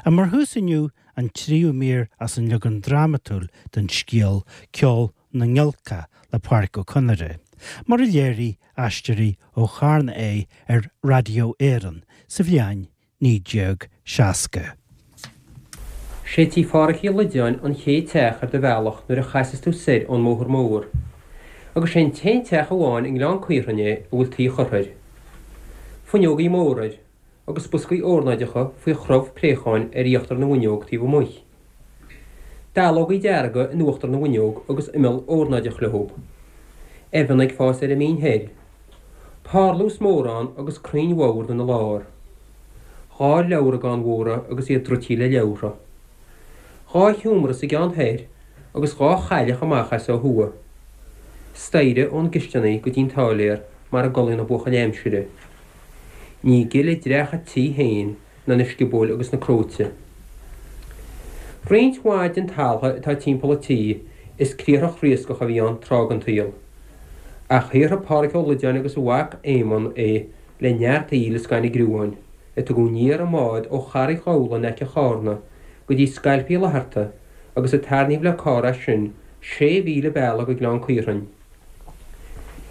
Mar thús inniu, an tríú mír as an leagan drámatúil den scéal Ceol na nGiolcach le Pádraic Ó Conaire, mar a léirigh Aisteoirí ó Charna é ar Raidió Éireann sa bhliain 1960. Sé tí Phádhraic Uí Loideáin an chéad teach ar do bhealach nuair a chasas tú soir ón mbóthar mór, agus sé an t-aon teach amháin i nGleann Caorthainn é a bhfuil tuí curtha air. Fuinneogaí móra air, agus boscaí órnáideacha faoi chrobh préacháin ar íochtar na bhfuinneog taobh amuigh. Dallógaí dearga in uachtar na bhfuinneog agus imeall órnáideach leob. Eibheanna ag fás ar an mbinn thoir. Parlús mór ann agus crainn bhord ina lár. 2 leabhragán mhóra agus iad druidtí le leabhartha. 2 sheomra sa gceann thoir agus 2 chailleach amach as ó thuaidh. Staighre ón gcisteanaigh go dtí'n t-áiléar mar a gcodlaíonn na buachaillí aimsire. Ní gile dreach a' tí féin ná na sciobóil agus na cróite. Roinnt mhaith den taltha atá timpeall an tí is criathrach riascach a bhí ann tráth den tsaol. Ach shaothraigh Pádhraic Ó Loideáin agus a mhac Éamonn é le neart aoil is gainne gruáin, a tugadh aniar i mbád ó Charraig Ghabhla in aice Chárna go dtí Scailp Uí Fhlatharta agus a tarraingíodh le carr as sin sé mhíle bealaigh go Gleann Caorthainn.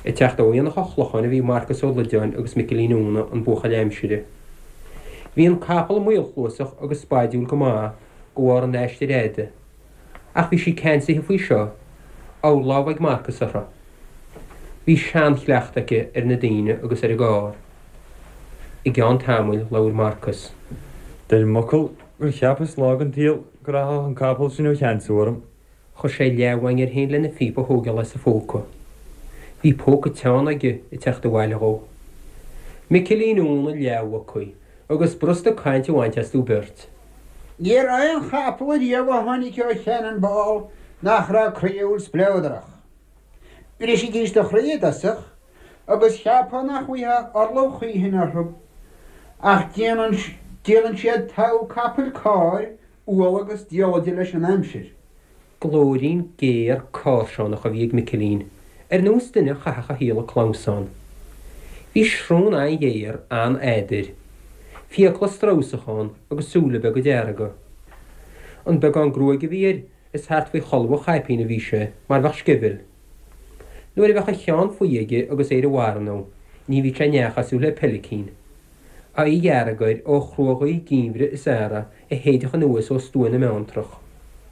Ag teacht ó Aonach an Chlocháin a bhí Marcas Ó Loideáin agus Micilín Úna, an buachaill aimsire. Bhí an capall maolchluasach agus spaidiúil go maith de bharr an aistir fhada. Ach bhí sí ceansaithe faoi seo, urlámh ag Marcas uirthi. Bhí seanchleachtadh aici ar na daoine agus ar an gcarr. I gceann tamaill labhair Marcas. Deirim m'fhocal gur cheapas lá den tsaol go rachadh an capall sin ó cheansú orm. Chuir sé leathmhaing air féin lena phíopa a thógáil as a phóca. Bhí póca teann aige ag teacht abhaile dhó. Micilín Úna leathmhucaí agus b'fhurasta caint a bhaint astu beirt. Ní raibh aon chapall ariamh a tháinig ó Channonball nach raibh croíúil spleodrach. Bhrisfidís do chroí i dtosach agus cheapfá nach bhfaighfeá orlach choíchin orthu, ach déanann déanann siad togha capaill cairr umhal agus diallaide leis an aimsir. Glóirín géar cáirseánach a bhí ag Micilín, ar nós duine a chaithfeadh a shaol ag clamhsán. Bhí srón an-ghéar, an-fhada air. Fiacla stramhsacha ann agus súile beaga dearga. An beagán gruaige a bhí air, is thart faoi cholbha an chaipín a bhí sé, mar bheadh sceimheal. Nuair a bheadh a cheann faoi aige agus é ar a mharana, ní bhíodh sé neach cosúil le peilicín. Aghaidh dhearg air ó chruaghaoth geimhridh is earraigh a shéidfeadh anuas ó stua na mBeanntrach.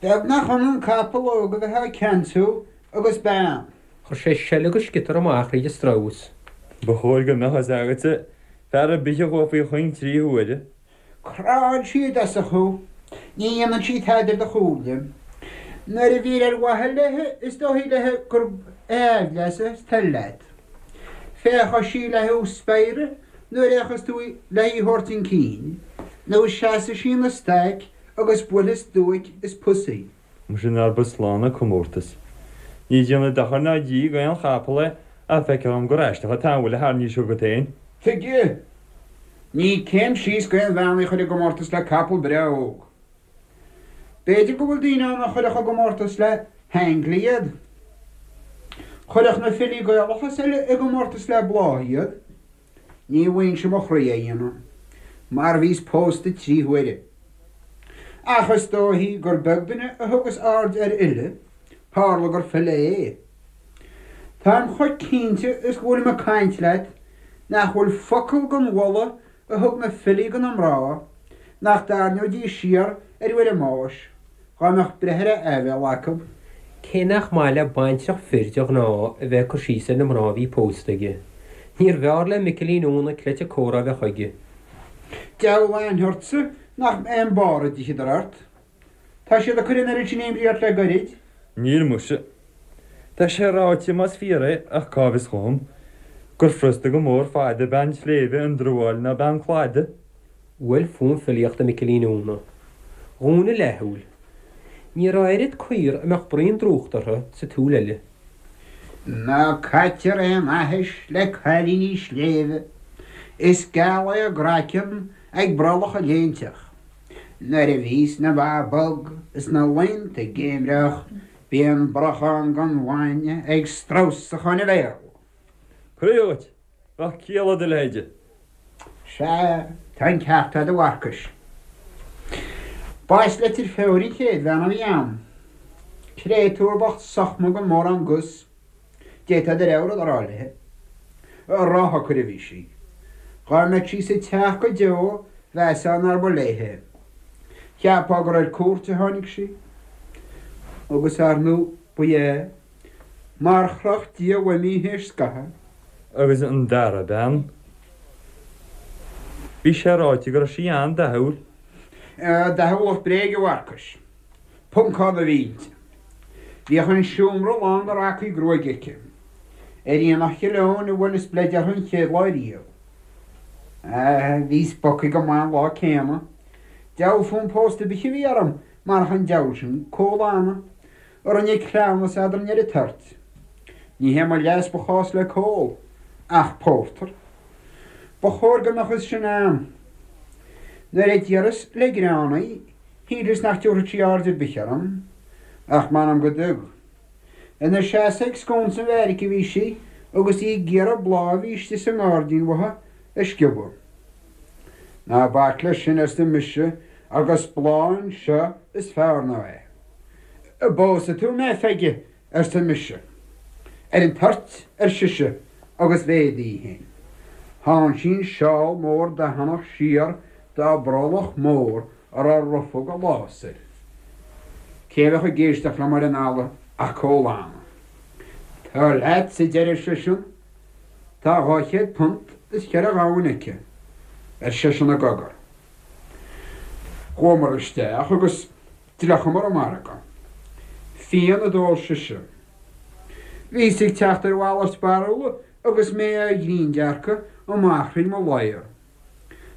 Beag nach ionann capall óg a bheith á ceansú agus bean. Chuir sé seile agus sciotar amach thríd an stramhas. Ba chóir go mbeadh fhios agatsa, fear ar bith a chuaigh faoi chuing 3 huaire. Cránn sí i dtosach thú. Ní dhéanann sí tada ar do chúinne. Nuair a bhír ar mhaithe léi is dóichí léi gurb aimhleas is toil leat. Féachfaidh sí le thú spiaireadh nuair a fhéachas tú le í thabhairt chun cinn, nó seasfaidh sí ina staic agus buailfidh stuaic is pus í. Muise nár ba slán an comórtas. Ní déanamh dochair ná díth d'aon chapall é ach feictear dhom gur aisteach an t-amhuil a tharraingís chugat féin. Tuige? Ní céim síos d'aon bhean í a chur i gcomórtas le capall breá óg. B'fhéidir go bhfuil daoine ann a chuirfeadh i gcomórtas le haingle iad. Chuirfeadh na filí Gaelacha is eile i gcomórtas le bláth iad. Ní bhfuighinnse mo chroí é dhéanamh, mar bhíos pósta 3 huaire. Ach is dóichí gur beag duine a thugas aird ar fhile, tharla gur file é. Táim chomh cinnte is go bhfuilim ag caint leat nach bhfuil focal den mholadh a thug na filí do na mná nach dtarraingeoidís siar ar uair a mbáis, dhá mbeadh breith ar a aibhéil acu. Cé nach maith le baintreach fir de ghnáth a bheith ag cur síos ar na mná a bhí pósta aige, níorbh fhearr le Micilín Úna cleite comhrá a bheith chuige. Deabhal aithne ortsa nach mbeidh an barr a d'itheadar ort. Tá siad ag cur an oiread sin imní ort le goirid. Níl muise. Tá sé ráite, más fíor é, ach cá bhfios dhom, gur furasta go mór fada bean tsléibhe a ndruáil ná bean cladaigh. Bhuail fonn filíochta Micilín Úna. Dhún a leathshúil. Ní raibh oiread caor a mbeadh braon drúchta orthu sa tsúil eile. Ná caitear aon aithis le cailíní sléibhe, is geal é a gcraiceann ag brollach a léinteach. Nuair a bhíos na ba bog is na laonta geimhreach bíonn brachán den bhainne ag stramhsach óna bhéal. Croí dhuit! Bheadh ciall le do leithide. Sea, tá an ceart a'd a Mharcais. B'as Leitir Feoir an chéad bhean a bhí a'm. Créatúr bocht sochma gan mórán gus. D'fhéadfá do rogha rud a rá léithe. Róshocair a bhí sí. Dhá mbeadh sí sa teach go deo mheasfá nár ba léithe é. Cheapfá gur ar cuairt a tháinig sí. Agus ar ndú ba ea. Mar chroch Dia uaim í théis scaithimh. Agus an dara bean? Bhí sé ráite go raibh sí an-dathúil. Dathúlacht bréige, a Mharcais. Poncán a bhí inti. Bhíodh an seomra lán de racaí gruaige aici. Ar Aonach Chill Eoin a bhuaileas bleid uirthi an chéad lá riamh. Bhíos bogtha go maith an lá céanna. Diabhal fonn pósta ar bith a bhí orm marach an diabhal sin, Cóil Anna, a rinne cleamhnas eadrainn ar an toirt. Ní hé mo leas ba chás le Cóil, ach pórtar. Ba chóir go mbeadh fhios sin a'm. Nuair a d'iarras le greann í, shíleas nach dtabharfadh sí aird ar bith orm, ach m'anam go dtug. Ina seasamh ag sconsa an bheairic a bhí sí agus í ag iarraidh bláth a bhí istigh sa ngairdín uaithi a sciobadh. Ná bac leis sin, arsa mise, agus bláth anseo is fearr ná é. An bpósfaidh tú mé, a Pheige? arsa mise. Ar an toirt, ar sise, agus mhéadaigh í féin. Shán sí an seál mór dathannach siar dá brollach mór a raibh rufóg ag lás air. Cé a bheadh ag éisteacht liom ar an fhalla ach Cóil Anna. Tar leat, a deireadh seisean. Tá £200 is cheithre ghamhain aici, ar seisean i gcogar. Chuamar isteach agus d'fhliuchamar an margadh. Fíon a d'ól sise. Bhíos ag teacht ar mhalairt barúla agus mé á ghrinndearcadh amach thríd mo ladhar.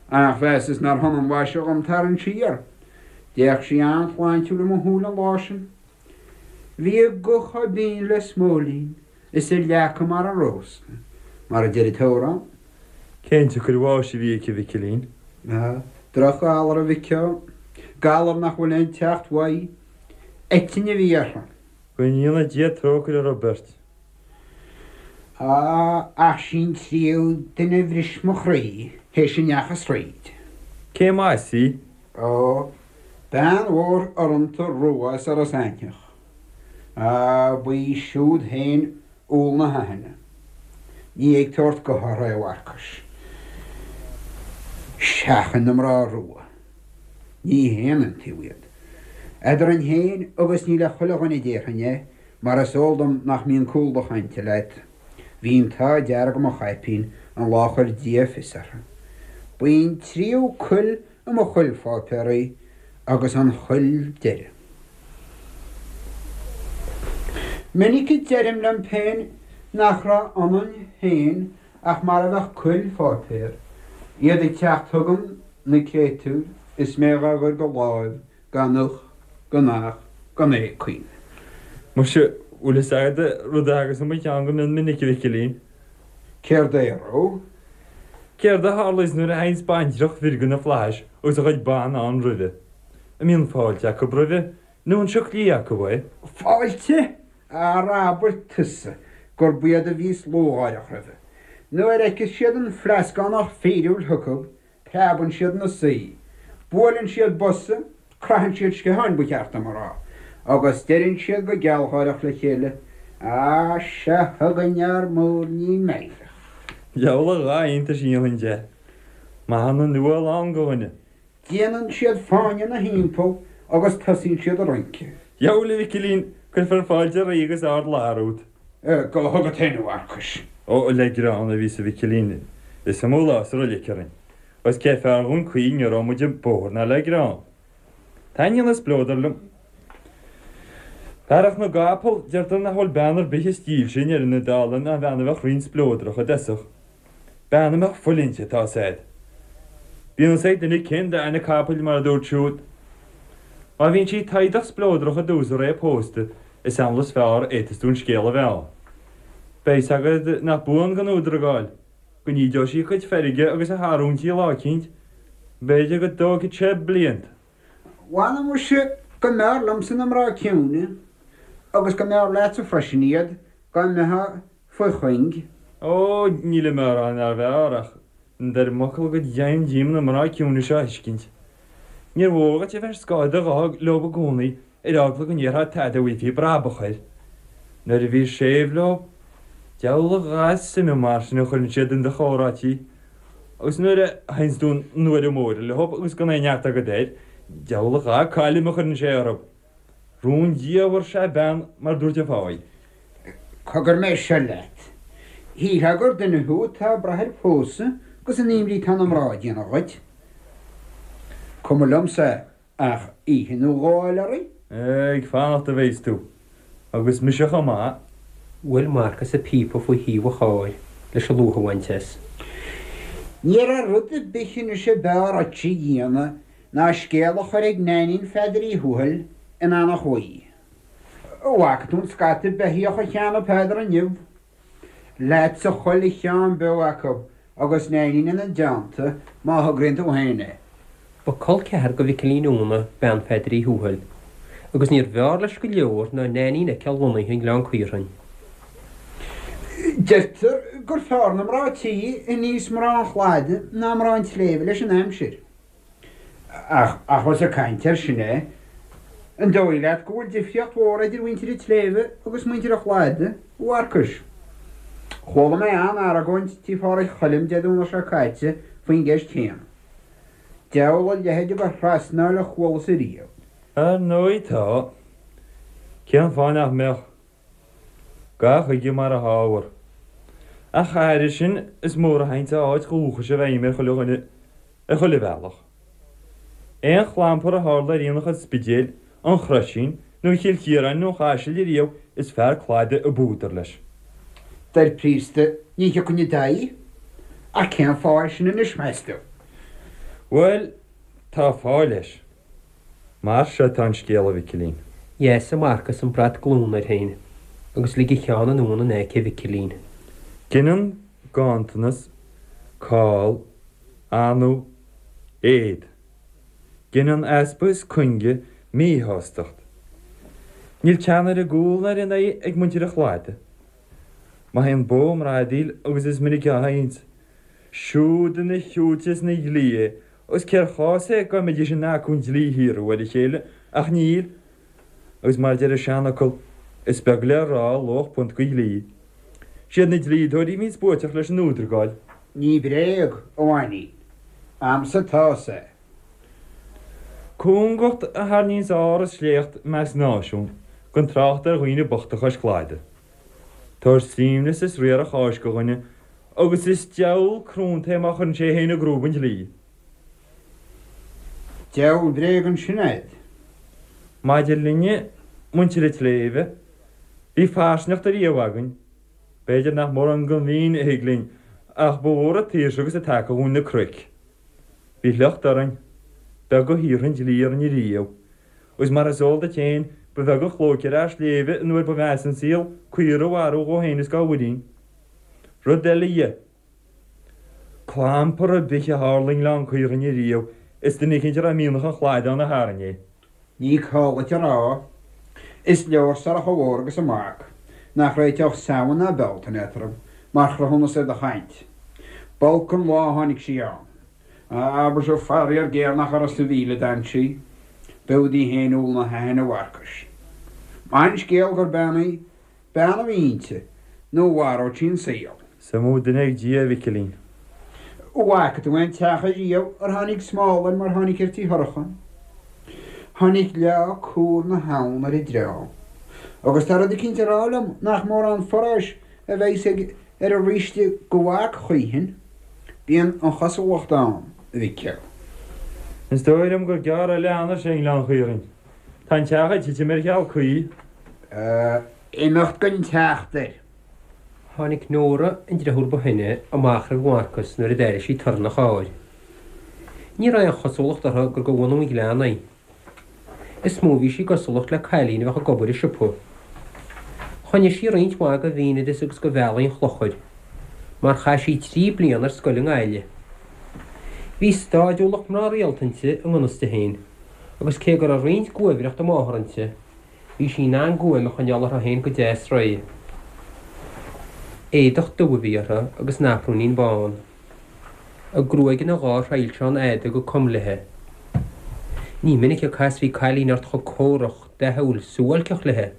Ach mheasas nár shona an mhaise dhom tarraingt siar. D'fhéach sí an-shláintiúil i mo shúile an lá sin. Bhí a guth chomh binn le smóilín is a leaca mar an rósa, mar a deir an t-amhrán. Cén tsiocair bháis a bhí aici, a Mhicilín? Drochghalar, a mhic ó. Galar nach bhfuil aon teacht uaidh. Eitinn a bhí uirthi. Go ndéana Dia trócaire orthu beirt. Á, ach sí an tríú duine a bhris mo chroí théis a ndeachas thríd. Cé as í? Ó, bean mhór urrúnta rua as Iorras Aithneach. Á, ba í siúd féin úll na haithne. Ní ag tabhairt gutha orthu é, a Mharcais. Seachain na mná rua. Ní haon iontaobh iad. Eadrainn féin agus ní le chuile dhuine a déarfainn é, mar is eol dom nach mbíonn cúl do chainte leat. Bhí an t-ádh dearg i mo chaipín an lá a chuir Dia fios orthu. Ba í an tríú cuil i mo chuil pháipéar í agus an chuil deiridh. Minic a deirim liom féin nach raibh ionainn féin ach mar a bheadh cuil pháipéir, iad ag teacht chugam, na créatúir, is mé dhá gcur de láimh gan uch, gan ach, gan éagaoin. Muise, bhfuil fhios agat rud a thagas i mo cheann go mion minic, a Mhicilín? Céard é, a Ró? Céard a tharlaíos nuair a théanns baintreach bhir de na flaithis agus a chuid ban ann roimhe? An mbíonn fáilte acu roimhe, nó an sioc liath acu é? Fáilte? Ara abair tusa gurb iad a bhíos lúcháireach roimhe. Nuair a fheiceas siad an fleascánach fíriúil chucu, Preabann siad ina suí, buaileann siad bosa, craitheann siad sciatháin ba cheart dom a rá, agus deireann siad go gealgháireach le chéile, Á, seo chugainn ár múirnín meidhreach. Diabhal a dhath iontais a dhéanfainn de. Maith an nuáil ann do dhuine. Déanann siad fáinne ina thimpeall agus tosaíonn siad ag rince. Diabhal, a Mhicilín, cuirfear fáilte ríoga is ardfhlaithe romhat. Go dtuga féin, a Mharcais. Ó, le greann a bhíos, a Mhicilín. Is iomaí lá sa roilic orainn. Agus cé fearr dhúinn caoi ní raibh muid ag bóthar ná le greann. Taitníonn an spleodar liom. Fearacht na gcapall, deirtear nach bhfuil bean ar bith is dílse i ndeireadh na dála ná bean a bheadh righin spleodrach i dtosach. Bean a mbeadh fuil inti, tá 's a'd. Bíonn fhios ag duine cén dath na capaill mar a dúirt siúd. Má bhíonn sí taghdach spleodrach i dtús a ré pósta, is amhlaidh is fearr a fhéadfas tú an scéal a mheá. Beidh 's agad nach buan gan údar a gabháil, go n-ídeoidh sí a cuid feirge agus a hargóintí lá eicínt, b'fhéidir go dtógfaidh sé blianta. Mh'anam muise go mb'fhearr liomsa na mná ciúine, agus go mb'fhearr leatsa freisin iad, dá mbeifeá faoi chuing. Ó, nílim á rá nár bhfearr, ach ndeirim fhocal go deimhin díom na mná ciúine seo a thuiscint. Níor mhór dhuit a bheith ar scáth do ghutha leob i gcónaí ar eagla go ndéarfá tada a bhfaighfí brabach air. Nuair a bhís séimh leo, diabhal a dhath suime mar sin a chuireann siad in do chomhráití, agus nuair a théanns tú 'na uaire móire leob agus gan aon neart agat air, diabhal a dhath cailm a chuireann sé orthu. Rúndiamhair is ea bean, mar dúirt an fáidh. Cogar mé seo leat. Shílfeá gur duine thú atá ag brath ar phósadh agus an imní atá na mná ag déanamh dhuit. Cuma liomsa ach oíche nó dhó a fháil oraibh. Ag fanacht a bheas tú. Agus mise chomh maith. Bhuail Marcas a phíopa faoi thaobh an chairr leis an lúth a bhaint as. Ní raibh rud ar bith anois ab fhearr dhuit a dhéanamh ná scéal a chur ag Neainín Pheadair Uí Thuathail in Eanach Mhaí. An bhfaca tú an scata beithíoch a cheannaigh Peadar inniu? Leatsa chuile cheann beo acu agus Neainín ina dteannta má thograíonn tú féin é. Ba col ceathar do Mhicilín Úna bean Pheadair Uí Thuathail, agus níorbh fhearr leis go leor ná Neainín a fheiceáil lonnaithe i nGleann Caorthainn. Deirtear gur fearr na mná tí a níos mná an chladaigh ná mná an tsléibhe leis an aimsir. Ach, ach ós ag caint air sin é, an dóigh leat go bhfuil difríocht mhór idir mhuintir an tsléibhe agus muintir an chladaigh, a Mharcais? Chuala mé an-argóint tí Phádraig Choilm Dé Domhnaigh seo caite faoin gceist chéanna. Diabhal a leithéid de thrasnáil a chualas ariamh. Ar ndóigh tá. Cén fáth nach mbeadh? Gabh chuige mar a hábhar. Ach thairis sin, is mór a théanns a áit dhúchais i bhfeidhm ar chuile dhuine, ar chuile bhealach. Aon chlampar a tharla ar aonach an Spidéil, an Chroisín, nó Chill Chiaráin nó an Chaisil ariamh, is fear cladaigh ab údar leis. Deir príosta, ní thiocfainn i d'aghaidh. Ach cén fáth é sin anois, meas tú? Bhuel, tá fáth leis. Mar seo atá an scéal, a Mhicilín. Dheasaigh Marcas an brat glúine air féin agus lig a cheann anonn in aice Mhicilín. Gineann ganntanas, call, anú, éad. Gineann easpa is cuinge míshástacht. Níl teann ar an gcúl ná ar an aghaidh ag muintir an chladaigh. Má théann bó i mbradaíl, agus is minic a théanns, siúd ina shiúite is ina dhlí é, agus cér chás é dá mbeidís in acu an dlí a shíorú ar a chéile, ach níl, agus mar a deir an seanfhocal, is beag le rá luach punt de dhlí. Siad na dlíodóirí a bhíonns buaiteach leis an údragáil. Ní bréag, a Mhainín. A'msa atá sé. Cúngacht a tharraingíonns ár is sléacht i measc náisiún, gan trácht ar dhaoine bochta cois cladaigh. Tabhair suaimhneas is riar a cháis do dhuine agus is diabhal crónta é má chuireann sé é féin i gcrúib an dlí. Diabhal bréag ansin a'd. Maidir linne, muintir an tsléibhe, bhí fairsingeacht ariamh againn. B'fhéidir nach mórán den mhín a thig linn, ach ba mhór an tsaoirse agus an taca dhúinn na cnoic. Bhí sliocht orainn. Beag a shaothraigh an dlí orainn ariamh. Agus mar is eol duit féin, ba bheag an chlóic ar fhear sléibhe an uair ba mheasa an saol, caora a mharú dhó féin is dá mhuirín. Rud eile dhe. Clampar ar bith a tharla i nGleann Caorthainn ariamh, is duine eicínt a raibh mianach an chladaigh ann a tharraing é. Ní call duit a rá. Is leor Sorcha Mhór agus a mac, nach réiteodh Samhain ná Bealtaine eatarthu, mar chruthúnas ar do chaint. B'olc an lá a tháinig sí ann. Abair, faraor géar nach uireasa a mhíle a d'fhan sí. B'fhiú di féin úll na haithne, a Mharcais. Maith an scéal gur bean í. Bean a bhí inti, nó mharódh sí an saol. Is iomaí duine ag Dia, a Mhicilín. An bhfaca tú aon teach ariamh ar tháinig smál air mar tháinig ar tí Shorcha? Tháinig leá cúr na habhann ar an dream. Agus tá rud eicínt ag rá liom nach mórán foráis a bheas ag ar an ríste do mhac choíchin. Bíonn an chosúlacht ann, a Mhicil. Is dóigh liom gur gearr eile a fhanfaidh sé i nGleann Chaorthainn. Tá an teach ag titim ar cheal caoi. Imeacht gan teacht air. Tháinig Nóra, an driofúr ba shine, amach roimh Mharcas nuair a d'airigh sí torann an chairr. Ní raibh aon chosúlacht uirthi gur de bhunadh an ghleanna í. Is mó a bhí sí i gcosúlacht le cailín a bheadh ag obair i siopa. Choinnigh sí roinnt mhaith de mhínoideas agus de bhealaí an chlochair, mar chaith sí trí bliana ar scoil i nGaillimh. Bhí stáidiúlacht mná rialta inti i ngan fhios di féin. agus cé go raibh roinnt guaimhreachta máthar inti, bhí sí in ann guaim a choinneáil uirthi féin go deas réidh. Éadach dubh a bhí uirthi agus naprúinín bán. A gruaig ina dhá thrilseán fhada go com léi. Ní minic a casfaí cailín ort chomh córach, dathúil, suáilceach léi.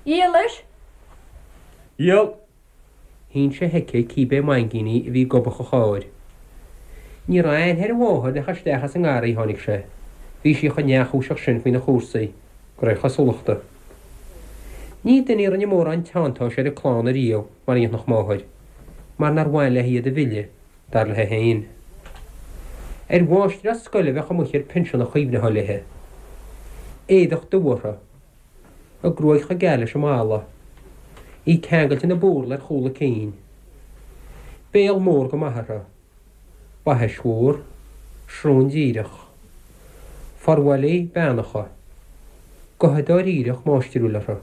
Dhíolais? Dhíol! Shín sé chuici cibé maingíní a bhí i ngobach an chairr. Ní raibh aithne ar a mháthair nach isteach as an ngarraí a tháinig sé. Bhí sí chomh neamhchúiseach sin faoina chúrsaí, de réir chosúlachta. Ní duine í a rinne mórán teanntáis ar a clann ariamh mar a dhéanfadh máthair, mar nár bhain léi iad a mhilleadh, dar léi féin. Ar mháistreás scoile a bheadh amuigh ar pinsean a chuimhneofá léi. Éadach dubh uirthi. A gruaig chomh geal leis an mballa. Í ceangailte ina búrla ar chúl a cinn. Béal mór go maith uirthi. Baithis mhór. Srón díreach. Forbhallaí beannacha. Gotha dáiríreach máistriúil uirthi.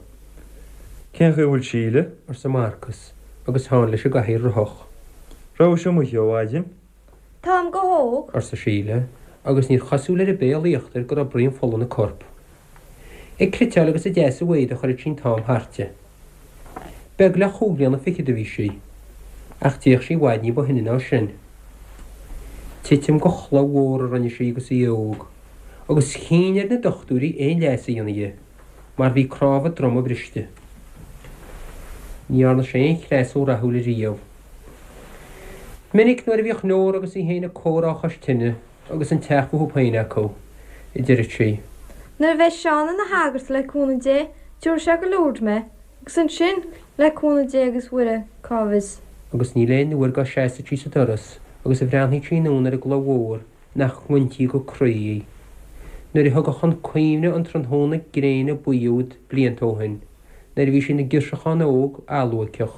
Cén chaoi a bhfuil Síle? arsa Marcas agus Seán leis an gcathaoir rothach. Rabhais amuigh ó mhaidin? Táim go hóg. arsa Síle, agus níor chosúil ar a béal íochtair go raibh braon fola ina corp. Ag cniotáil agus ag deasú éadaigh a chuireadh sí an t-am thairti. Beag le chúig bhliana fichead a bhí sí, ach d'fhéach sí i bhfad ní ba shine ná sin. Titim de chloch mhór a rinne sí agus í óg, agus chinn ar na dochtúirí aon leigheas a dhéanamh dhi, mar bhí cnámh a droma briste. Ní dhearna sé aon chreasú rathúil ariamh. Minic nuair a bhíodh Nóra agus í féin ag comhrá chois tine, Agus an teach fúthu féin acu, a deireadh sí. Nuair a bheidh Seán ina shagart, le cúnamh Dé, tabharfaidh sé go Lourdes mé, agus ansin, le cúnamh Dé agus Mhuire, cá bhfios. Agus níl aon uair dá seasfadh sí sa doras agus a bhreathnaíodh sí anonn ar an gcloch mhór nach ngointí go croí í. Nuair a thiocfadh chun cuimhne an tráthnóna gréine buí úd blianta ó shin, nuair a bhí sí ina girseachán óg alluaiceach,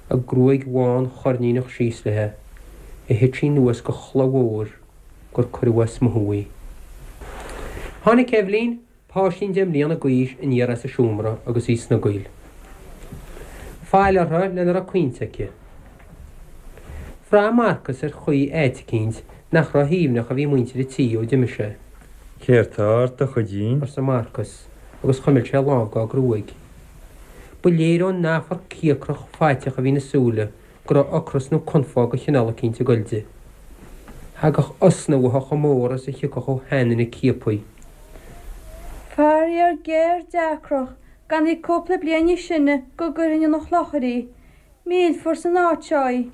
a gruaig bhán choirníneach síos léi, a thit sí anuas de chloch mhór gur cuireadh as mothú í. Tháinig Eibhlín, páistín deich mbliana d'aois, aniar as a seomra agus í ag snogaíl. Fail uirthi lena raibh caointe aici. Bhraith Marcas ar chaoi áit eicínt nach ró-shuaimhneach a bhí muintir an tí ó d'imigh sé. Céard tá ort, a chuidín? arsa Marcas agus chuimil sé a lámh dá gruaig. Ba léir ón meafar cíocrach faiteach a bhí ina súile go raibh ocras nó confadh de chineál eicínt ag goil di. Thagadh osna uaithi chomh mór is a thiocfadh ó sheanduine ciaptha. Faraor géar deacrach, gan í cúpla bliain níos sine go gcuirfinn 'na chlochair í. Millfear san áit seo í.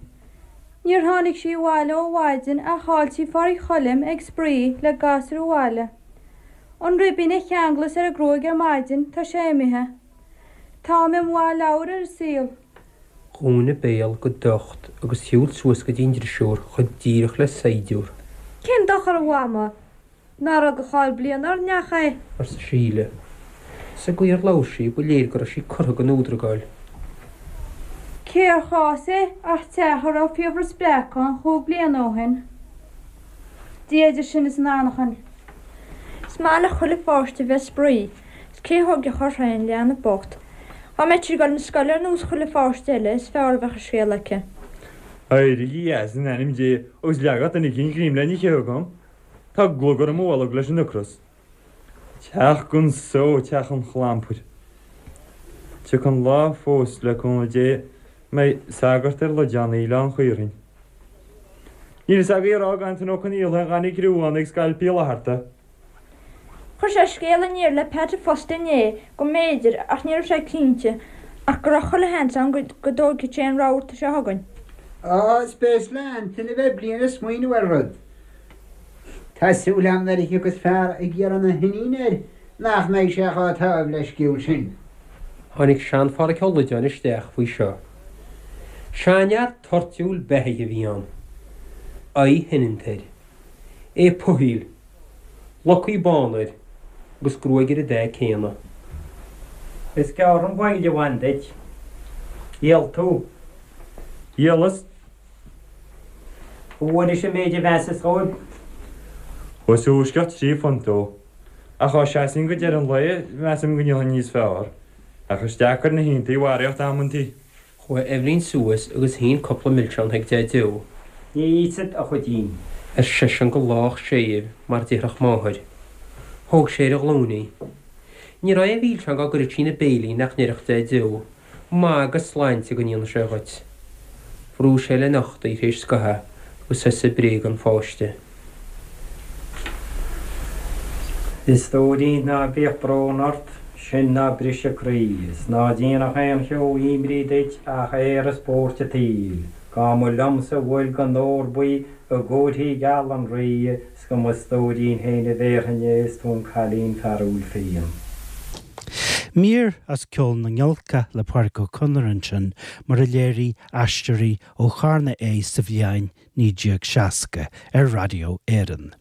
Níor tháinig sí abhaile ó mhaidin ach chaill sí Phádraic Choilm ag spraoi le gasúir an bhaile. An ribín a cheanglas ar a gruaig ar maidin, tá sé imithe. Táim i mo mhaith leabhar ar an saol. Dhún a béal go docht agus shiúil suas go dtí an drisiúr chomh díreach le saighdiúr. Cén dochar a mhama? Nár fhág a cháil bliain ár neach é? arsa Síle. Sa gcaoi ar labhair sí, ba léir go raibh sí curtha den fhuadragáil. Cér chás é ach teach a raibh fiabhras breac ann chúig bliana ó shin. Dia idir sinn is an anachain. Is maith le chuile pháiste bheith ag spraoi, 's cé thóigfeadh air féin leanbh bocht. Dá mbeadh sí ag dul 'na scoile ar nós chuile pháiste eile is fearr a bheadh an scéal aici. Éirígí as in ainm Dé agus leagadh duine eicínt greim le n-ithe chugam. Tá glugar i mo bholg leis an ocras. Teach gan só, teach an chlampair. Tiocfaidh an lá fós, le cúnamh Dé, a mbeidh sagart ar Loideáin Oileán Chaorthainn. Níl fhios agaibh a rá ag Antaine Ó Conaola aon ghainne criú ann ag Scailp Uí Fhlatharta. Chuir sé scéala aniar le Peaits fosta inné go mb'fhéidir, ach ní raibh sé cinnte, ach go raibh chuile sheans ann go dtóigfeadh sé an rabharta seo chugainn. Á, is béas le Antaine a bheith bliain ag smaoineamh ar rud. Tá súil agam nuair a thiocfas fear ag iarraidh na hiníne air nach mbeidh sé chomh támh leisciúil sin. Tháinig sean-Pháraic Ó Loideáin isteach faoi seo. Seanfhear toirtiúil beathaithe a bhí ann. Aghaidh shoineanta air. É puthaíl. Locaí bána air agus gruaig ar an dath céanna. Is gearr an mhoill a bhain duit. Dhíol tú. Dhíolas. An bhfuairis an méid a mheasas dhóibh? Thuas uaisceacht £3 ó. Ach dá seasfainn go deireadh an lae, measaim go ndíolfainn níos fearr. Ach is deacair na hiontaí a bharraíocht amantaí. Chuaigh Eibhlín suas agus shín cúpla milseán chuig Deaideo. Ní íosfad, a chuidín. ar seisean go lách séimh mar déarfadh máthair. Thóg sé ar a ghlúin í. Ní raibh aon mhilseán dá gcuireadh sí ina béal í nach ndéarfadh Deaideo, Maith agus sláinte go ndéana sé dhuit. Bhrúigh sé lena ucht í théis scathaimh agus thosaigh ag bréagadh an pháiste. A stóirín ná bíodh brón ort, sin ná briseadh croí, is ná déanadh aon cheo imní duit ach aer is buairt an tsaoil, Dá mba liomsa a bhfuil den ór buí i gcomharthaí geala an Rí, 's go mo stóirín féin a bhéarfainn é is tú an cailín fearúil fiain. Mír as Ceol na nGiolcach le Pádraic Ó Conaire ansin, mar a léirigh Aisteoirí ó Charna é sa bhliain 1960 ar Raidió Éireann.